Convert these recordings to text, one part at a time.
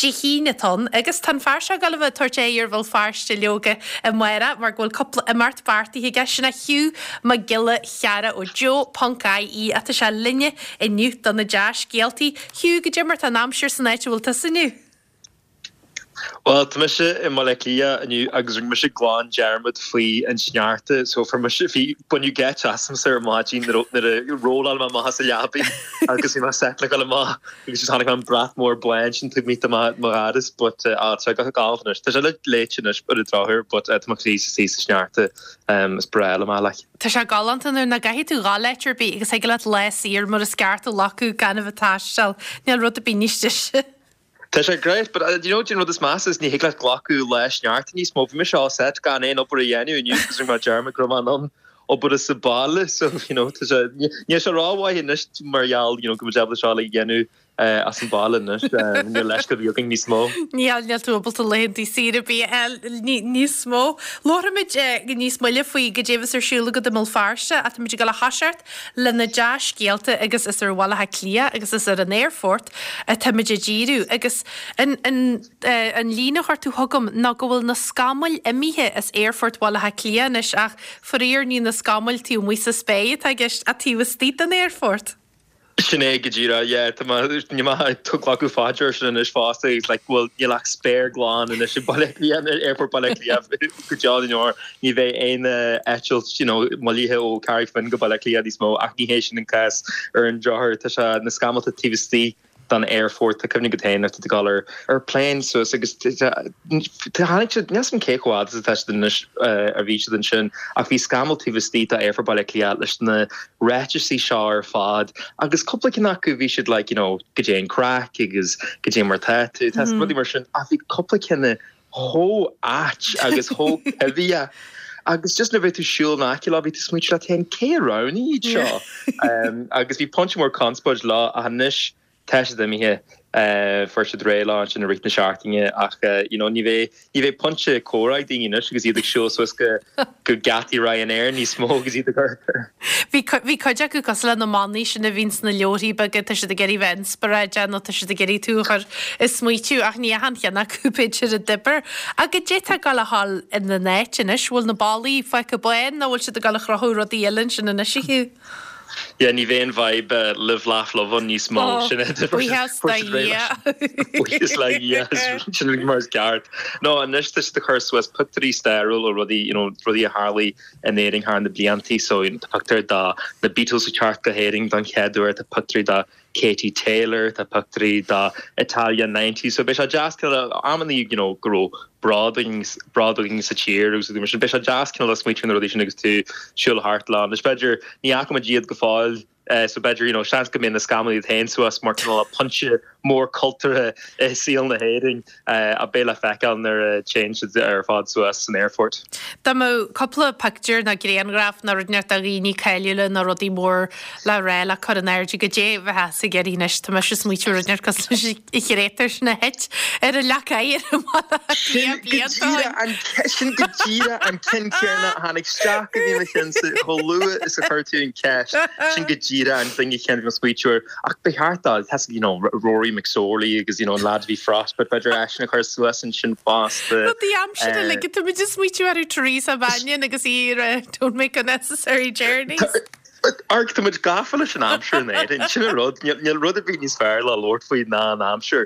Dé hAoine atá ann agus tá an fear seo ag dul a bheith ag tabhairt aghaidh ar Bhéal Feirste leoga amárach mar go bhfuil cúpla imeacht beartaithe aige. Sin é Hugh Mac Giolla Chearra ó Joe ponc IE ach tá sé linne inniu do na dea-scéaltaí. Hugh, goidé mar tá an aimsir san áit a bhfuil tusa inniu? Bhuel, tá mise i mBaile Átha Cliath inniu agus rinne mise glan dearmad faoi an sneachta so fuair mise, bhí, baineadh geit asamsa ar maidin nuair a rolláil mé amach as an leabaidh agus bhí mé set le dhul amach agus just chonaic mé an brat mór bán sin taobh amuigh de mo dhoras but ah tá sé go galánta anois. Tá sé leite anois ar an drochuair but tá mo chroí istigh sa sneachta is breá liom é like. Tá sé galánta nuair nach gcaithfidh tú dhul áit ar bith agus thig leat lá saor mar is ceart a ghlacadh gan a bheith ag taisteal. Níl rud ar bith níos deise. Tá sé great, but do you know, an rud is measa is ní thig leat glacadh lá sneachta níos mó. Bhí mise all set gan aon obair a dhéanamh inniu agus rinne mé dearmad go raibh mé in ann obair as an baile so you know tá sé níl sé rómhaith anois mar gheall you know go bhfuil muid ábalta seo a dhéanamh as an baile anois níl leithscéal ar bith againn níos mó. Níl, níl tú ábalta laethanta saoire ar bith a fháil níos mó. Labharfaimid níos moille faoi goidé a bheas ar siúl agat i mBéal Feirste ach táimid ag dul a thoiseacht le na dea-scéalta agus is ar Bhaile Átha Cliath agus is ar an aerfort atáimid ag díriú agus an an an líne a chuir tú chugam ná go bhfuil na scamaill imithe as aerfort Bhaile Átha Cliath anois ach faraor ní na scamaill taobh amuigh sa spéir atá i gceist ach taobh istigh den aerfort. Sin é go díreach, yeah, tá mé, níl mé ag glacadh faoi deara sin anois fosta agus like bhuel níl ach spéir glan anois i Baile Átha Cliath, Aerfort Baile Átha Cliath go deo na ndeor, ní bheidh aon eitilt you know moillithe ó Carraig Finn go Baile Átha Cliath níos mó ach ní hé sin an cás ar an drochuair. Tá sé na scamallta taobh istigh den aerfort, tá cuimhne agat féin nuair atá tú ag dul ar ar plane suas agus tháinig siad, níl 's agam cé chomh fhada is atá siad anois a bhí siad ansin ach bhí scamall taobh istigh d'aerfort Baile Átha Cliath leis na ráitisí seo ar fad agus cúpla ceann acu bhí siad like you know goidé an craic agus goidé mar tá tú, tá rudaí mar sin ach bhí cúpla ceann chomh ait agus chomh coimhthíoch agus just nuair a bhí tú ag siúl in aice leo bhí tú ag smaointiú leat féin cé a roghnaigh iad seo agus bhí pointe mór conspóid leo ach anois tá siad imithe fuair siad réidh leo ansin i rith na seachtaine ach you know ní bheidh ní bheidh pointe comhrá ag daoine anois agus iad ag siúl suas go go geataí Ryanair níos mó agus iad ag amharc. Bhí bhí cuid acu cosúil le na manaí sin a bhíonn sna leabharthaí beaga, tá siad ag iarraidh bheith inspioráideach nó tá siad ag iarraidh tú a chur ag smaoitiú ach ní achan cheann acu b'fhéidir a d'oibir. Ach goidé tá ag dul a ghabháil ina n-áit anois? Bhfuil na ballaí fágtha bán nó bhfuil siad ag dul a chruthú rudaí eile ansin anois a Hugh? Yeah, ní bheidh an vibe live laugh love ann níos mó. Oh, Sin é buíochas do Dhia. Buíochas le Dhia, sin mar is ceart. No, anois tá siad ag cur suas pictiúirí stairiúil ó rudaí, you know, rudaí a tharlaigh in Éirinn thar na bliantaí. So, you know, tá pictiúr de na Beatles ag teacht go hÉirinn don chéad uair, tá pictiúirí de Katie Taylor, tá pictiúirí de Italia 90. So beidh sé deas cineál amannaí, you know, go raibh bród againn, bród againn sa tír agus rudaí mar sin. Beidh sé deas cineál smaoitiú ar na rudaí sin agus tú ag siúl thart leo. Anois b'fhéidir, ní fhaca muid iad go fóill, so b'fhéidir, you know, seans go mbeidh na scamaill iad féin suas mar cineál pointe mór cultúrtha i saol na hÉireann a beidh le feiceáil nuair a téann siad ar fad suas san aerfort. Dá mbeadh cúpla pictiúr nó grianghraf nó rud inteacht de dhaoine cáiliúla nó rudaí mór le rá le cur in airde, goidé a bheifeá ag iarraidh anois, tá mise ag smaoitiú rud inteacht cosúil leis an chréatúr sin a thit ar an leac oighir i mBaile Átha Cliath blianta ó shin. Sin go díreach an ceann céanna a tháinig isteach go dtí mo cheannsa chomh luath is a chuir tú an ceist. Sin go díreach an duine céanna a bhí mé ag smaoitiú air. Ach ba cheart dó, tá you know, Rory McSorley agus you know, an lad a bhí Frostbite, b'fhéidir eisean a chur suas ansin fosta. Rudaí aimsire like tá muid ag smaoitiú ar Teresa Mannion agus í ar Don't Make Unnecessary Journeys. Amharc, tá muid gafa leis an aimsir in Éirinn, sin an rud, níl rud ar bith níos fearr le labhairt faoi ná an aimsir,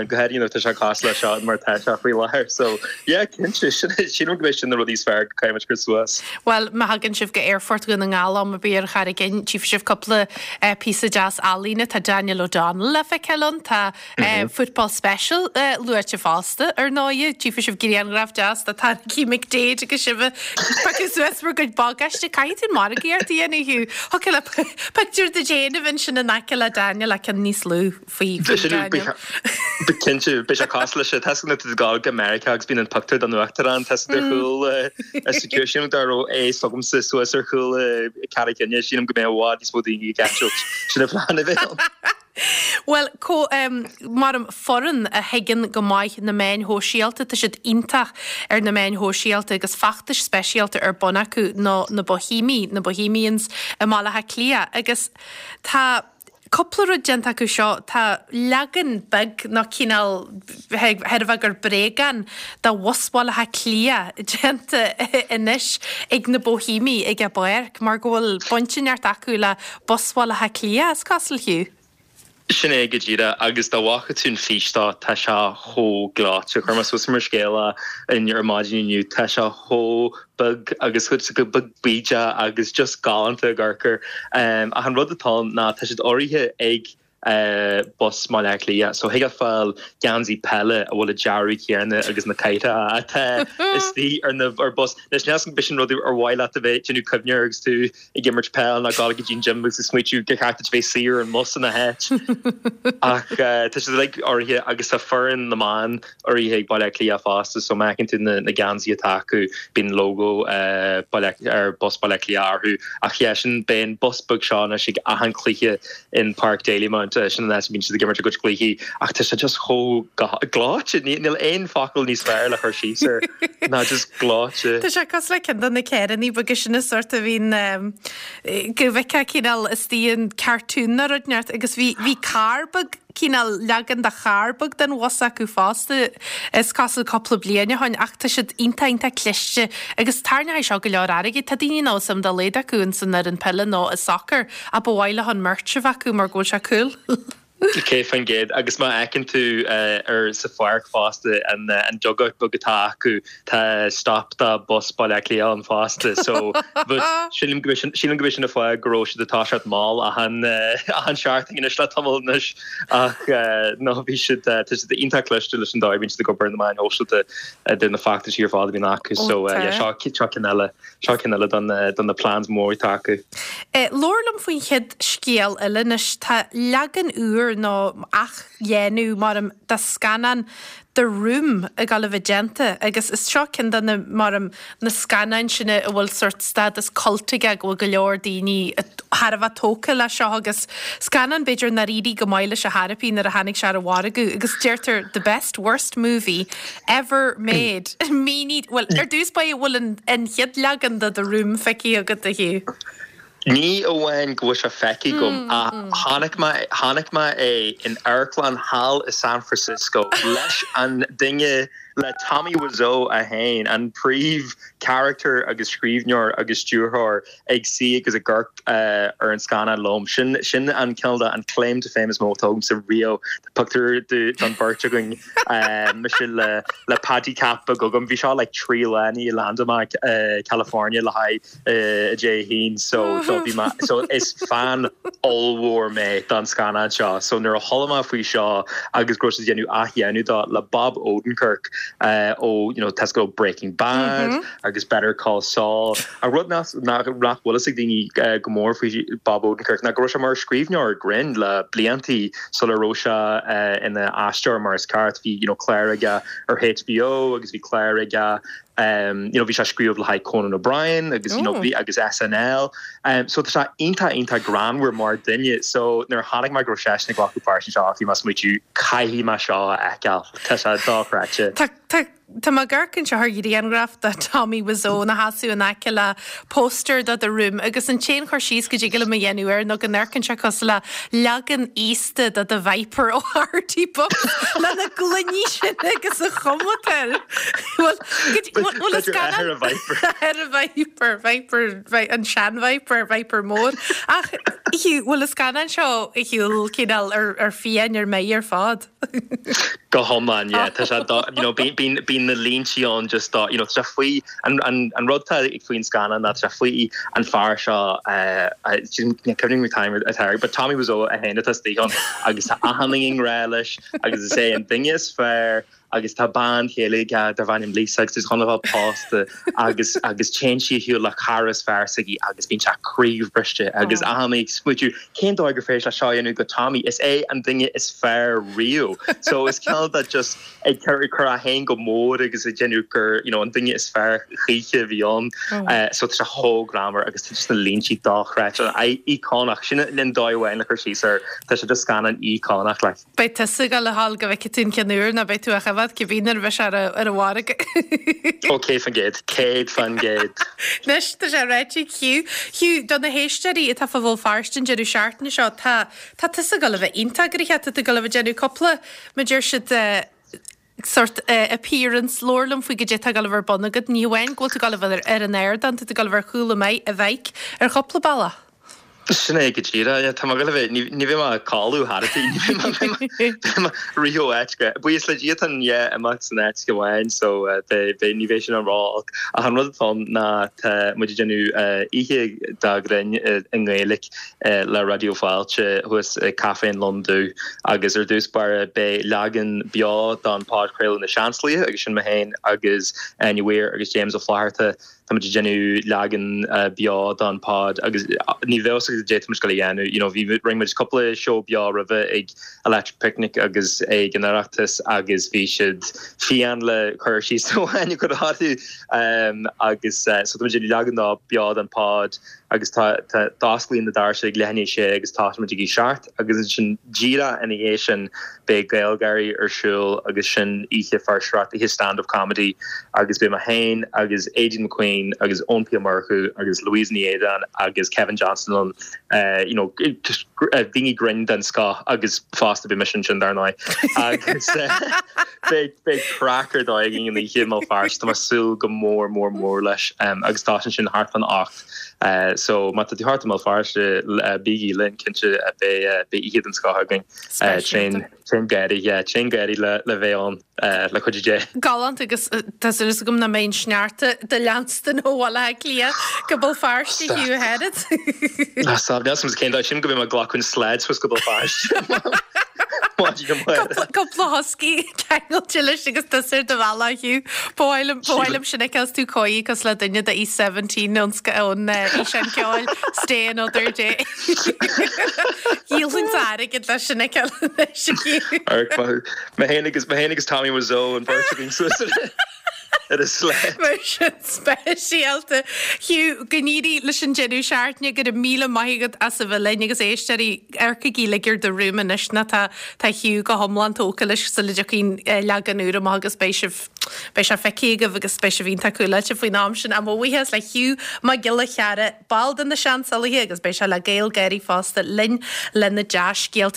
go háirithe nuair atá sé cosúil le seo mar atá sé faoi láthair. So, yeah, cinnte, sílim go mbeidh sin na rudaí is fearr go caithfidh muid cur suas. Bhuel, má thagann sibh go Aerfort Dhún na nGall am ar bith ar Charraig Fhinn, tchífidh sibh cúpla píosa deas ealaíne. Tá Daniel O'Donnell le feiceáil ann, tá Football Special luaite fosta, ar ndóighe. Tchífidh sibh grianghraf deas de Tadhg McDaid agus sibh ag piocadh suas bhur gcuid bagáiste. Caithfidh tú margaíocht a dhéanamh, Hugh. Thiocfadh le pictiúr duit féin a bheith ansin in aice le Daniel ach ceann níos lú faoi Daniel. Cinnte, beidh sé cosúil leis sin. Tá a fhios agat nuair atá tú ag gabháil go Meiriceá agus bíonn an pictiúr den uachtarán, tá a fhios agat ar chúl security. Sílim dá raibh é s'agamsa suas ar chúl Carraig Fhinne, sílim go mbeadh i bhfad níos mó daoine ag eitilt. Sin an phlean a bheidh ann. Bhuel, mar foireann a thuigeann go maith na meáin shóisialta, tá siad iontach ar na meáin shóisialta agus feachtais speisialta ar bun acu ná na Boihéamaigh, na Bohemians i mBaile Átha Cliath agus tá. Cúpla rud déanta acu seo, tá leagan beag nó cineál chreidfeá gur bréagán de bhus Bhaile Átha Cliath déanta anois ag na Boihéamaigh ag an bpáirc mar go bhfuil baint inteacht acu le bus Bhaile Átha Cliath, is cosúil, Hugh. Sin é go díreach, agus dá bhfaca tú an fís dó, tá sé chomh gleoite. Chuir mé suas mar scéal é ar maidin inniu, tá sé chomh beag agus chomh beag bídeach agus just galánta ag amharc air. Ach an rud atá ann ná tá siad urraithe ag bus Bhaile Átha Cliath, so thig leat fáil geansaí peile a bhfuil an dearadh céanna agus na cathracha atá istigh ar na ar bus. Anois níl 'fhios agam b'shin rud ar mhaith leat a bheith ag déanamh cuimhne air agus tú ag imirt peil nó ag dul go dtí an gym agus ag smaoitiú gur cheart duit a bheith suí ar an mbus ina háit. Ach tá siad uilig urraithe agus tá foireann na mban urraithe ag Baile Átha Cliath fosta so má fheiceann tú na geansaithe atá acu bíonn lógó Baile ar bus Baile Átha Cliath orthu. Ach yeah sin beidh an bus beag seo anois ag achan cluiche in Páirc Dalymount, sin an áit a mbíonn siad ag imirt a gcuid cluichí ach tá sé just chomh gleoite, níl aon focal níos fearr le cur síos air ná just gleoite. Tá sé cosúil le ceann de na carrannaí beaga sin an sórt a bhíonn go bhfeicfeá cineál istigh in cartoon nó rud inteacht agus bhí bhí carr beag cineál leagan de charr beag den bhus acu fosta is cosúil cúpla bliain ó shin ach tá siad iontach iontach cliste agus tarraingeoidh seo go leor airgid. Tá daoine nach bhfuil suim dá laghad acu ins an fhoireann peile nó i sacar ach ba mhaith leo an merch a bheith acu mar go bhfuil sé cool. 100%. Agus má fheiceann tú ar sa pháirc fosta an an dugout beag atá acu tá stop do bus Baile Átha Cliath ann fosta so but sílim go b'shin sílim go b'shin an fáth go raibh siad ag toiseacht mall achan achan seachtain anois le tamall anois ach no bhí siad tá siad iontach cliste leis an dóigh a bhíonn siad ag obair ar na meáin shóisialta idir na feachtaisí ar fad a bhíonn acu so yeah seo seo ceann eile. Seo ceann eile de na plans mór atá acu. Labhair liom faoin chéad scéal eile anois. Tá leagan úr nó athdhéanamh maram de scannán The Room ag dul a bheith déanta agus is seo ceann de na maram na scannáin sin a bhfuil sórt stádas cult aige go bhfuil go leor daoine thar a bheith tógtha leis seo agus scannán b'fhéidir nár éirigh go maith leis ar chor ar bith nuair a tháinig sé ar an mhargadh agus deirtear the best worst movie Ever made. Mínigh, bhuel, ar dtús báire, bhfuil an an chéad leagan de The Room feicthe agat, a Hugh? Ní amháin go bhfuil sé feicthe agam, ach chonaic mé, chonaic mé é in amharclann thall i San Francisco leis an duine, le Tommy Wiseau é féin, an príomh character agus scríbhneoir agus stiúrthóir ag suí agus ag amharc ar an scannán liom. Sin, sin an cineál de, an claim to fame is mó atá agamsa riamh. Tá pictiúr den bheirt againn, mise le le Paddy Cap beag agam. Bhí seo like 3 lá i ndiaidh landáil mé i California le haghaidh Dé hAoine so do bhí mé so is fan ollmhór mé don scannán seo. So nuair a chuala mé faoi seo agus go raibh siad ag déanamh athdhéanamh dó le Bob Odenkirk ó you know tá ó Breaking Bad agus Better Call Saul. An rud nach bhfuil fhios ag daoine go mór faoi Bob Odenkirk ná go raibh sé mar scríbhneoir grinn le bliantaí sula raibh sé ina aisteoir mar is ceart. Bhí you know cláir aige ar HBO agus bhí cláir aige you know bhí sé ag scríobh le haghaidh Conan O'Brien agus you know bhí agus SNL. So tá sé iontach iontach greannmhar mar duine. So nuair a chonaic mé go raibh seisean ag glacadh páirt anseo bhí mé ag smaoitiú caithfidh mé seo a fheiceáil. Tá sé dochreidte. Tá tá Tá mé ag amharc anseo ar ghrianghraf de Tommy Wiseau ina sheasamh in aice le póstaer de The Room agus an t-aon chur síos go dtig liom a dhéanamh air ná go n-amharcann sé cosúil le leagan aosta de The Viper ó Artie Bucks lena gloiní sin agus an chuma atá air. Bhuel, bhfuil an scannán... Ar a Viper, Viper, an sean-Viper, Viper mór. Ach, bhfuil an scannán seo ar shiúl cineál ar fiáin ar meidh ar fad? Go hiomlán, yeah. Tá sé do, you know, bíonn, bíonn na línte ann just do, you know, tá sé faoi, an, an, an rud atá faoin scannán ná tá sé faoi an fear seo, ní cuimhin liom an t-ainm atá air, but Tommy Wiseau é féin atá istigh ann agus tá achan duine i ngrá leis agus is é an duine is fearr agus tá bean chéile aige darb ainm Lisa agus tá siad chun a bheith pósta agus, agus téann sí ar shiúl le cara is fearr s'aici agus bíonn sé croíbhriste agus achan duine ag smaoitiú Cén dóigh gur féidir leis seo a dhéanamh go Tommy? Is é an duine is fearr riamh. So is cineál de just ag cur ag cur é féin go mór agus ag déanamh gur you know an duine is fearr choíche a bhí ann. So tá sé chomh greannmhar agus tá just na línte dochreidte. Íocónach. Sin an dóigh amháin le cur síos air. Tá sé just scannán íocónach like. Beidh tusa ag dul a ghabháil go bhfeicfidh tú an ceann úr nó beidh tú á choimhéad. choimhéad cibé nuair a bheidh sé ar an mhargadh. Ó 100%, 100%. Anois tá sé ráite ag Hugh. Hugh, do na héisteoirí atá fá Bhéal Feirste an deireadh seachtaine seo, tá tá tusa ag dul a bheith iontach gnoitheach, tá tú ag dul a bheith ag déanamh cúpla, mar deir siad, sort appearance, labhair liom faoi goidé atá ag dul a bheith ar bun agat. Ní hamháin go bhfuil tú ag dul a bheith ar an ardán, tá tú ag dul a bheith ar chúl an mhic ar chúpla bealach. Sin é go díreach, yeah, tá mé ag dul a bheith, ní bheidh mé ag codladh thar a bith, ní bheidh mé, beidh mé ag rith ó áit go, buíochas le Dia tá an yeah, imeacht san áit go amháin so beidh, ní bheidh sin an ró-olc. Ach an rud atá ann ná tá muid ag déanamh oíche de ghrinn i nGaeilge le Raidió Fáilte thuas ag Caife an Lon Dubh agus ar dtús báire beidh leagan beo den podchraoladh Na Seansalaithe agus sin mé féin agus Áine Weir agus James Ó Flatharta. Tá muid ag déanamh leagan beo den pod agus ní bheadh fhios agat goidé tá muid ag dul a dhéanamh. You know bhí rinne muid cúpla seó beo roimhe ag Electric Picnic agus ag an Oireachtas agus bhí siad fiáin le cur síos amháin a chur orthu agus so tá muid ag déanamh leagan beo den pod agus tá tá d'osclaíonn na doirse ag leath i ndiaidh a sé agus tosaíonn muid ag a 7 agus ansin díreach ina dhiaidh sin beidh GaelGáirí ar siúl agus sin oíche fuirseoireachta, oíche stand up comedy agus beidh mé féin agus Aideen McQueen agus Eoin P Ó Murchú agus Louise Ní Éadáin agus Kevin Johnston ann you know just daoine grinn den scoth agus fosta beidh mise ansin dar ndóigh agus beidh beidh craic ar dóigh againn an oíche i mBéal Feirste tá mé ag súil go mór mór mór leis agus tosaíonn sin thart fán 8 So má tá tú thart i mBéal Feirste, bígí linn, cinnte beidh oíche den scoth againn. Tréan tréan gáirí, yeah, tréan gáirí le le bheith ann le cuidiú Dé. Galánta agus tá súil agam nach mbeidh an sneachta do leanstan ó Bhaile Átha Cliath go Béal Feirste Hugh Harrod. Ná stop, níl 's agam cén dóigh, sílim go mbeidh mé ag glacadh an sled suas go Béal Feirste. Maidin amárach. Cúpla husky ceangailte leis agus tusa ar do bhealach Hugh. Ba mhaith liom, ba mhaith liom sin a fheiceáil is tú cóirithe cosúil le duine de East 17 ón ón fhíseán ceoil Stay Another Day. Dhíolfainn airgead leis sin a fheiceáil anois a Hugh. Amharc maith thú. Mé féin agus, mé féin agus Tommy Wiseau an bheirt againn suas ar ar an sled. Mar sin speisialta. Hugh, go n-éirí leis an deireadh seachtaine, go raibh míle maith agat as a bheith linn agus éisteoirí, amharcaigí uilig ar do rúm anois nó tá tá Hugh go hiomlán tógtha leis sula dtiocfaidh an leagan úr amach agus beidh sibh beidh sé feicthe agaibh agus beidh sibh iontach cúláilte faoin am sin. Ach mo bhuíochas le Hugh Mac Giolla Chearra, ball de na Seansalaithe agus beidh sé le GaelGáirí fosta linn le na dea-scéalta.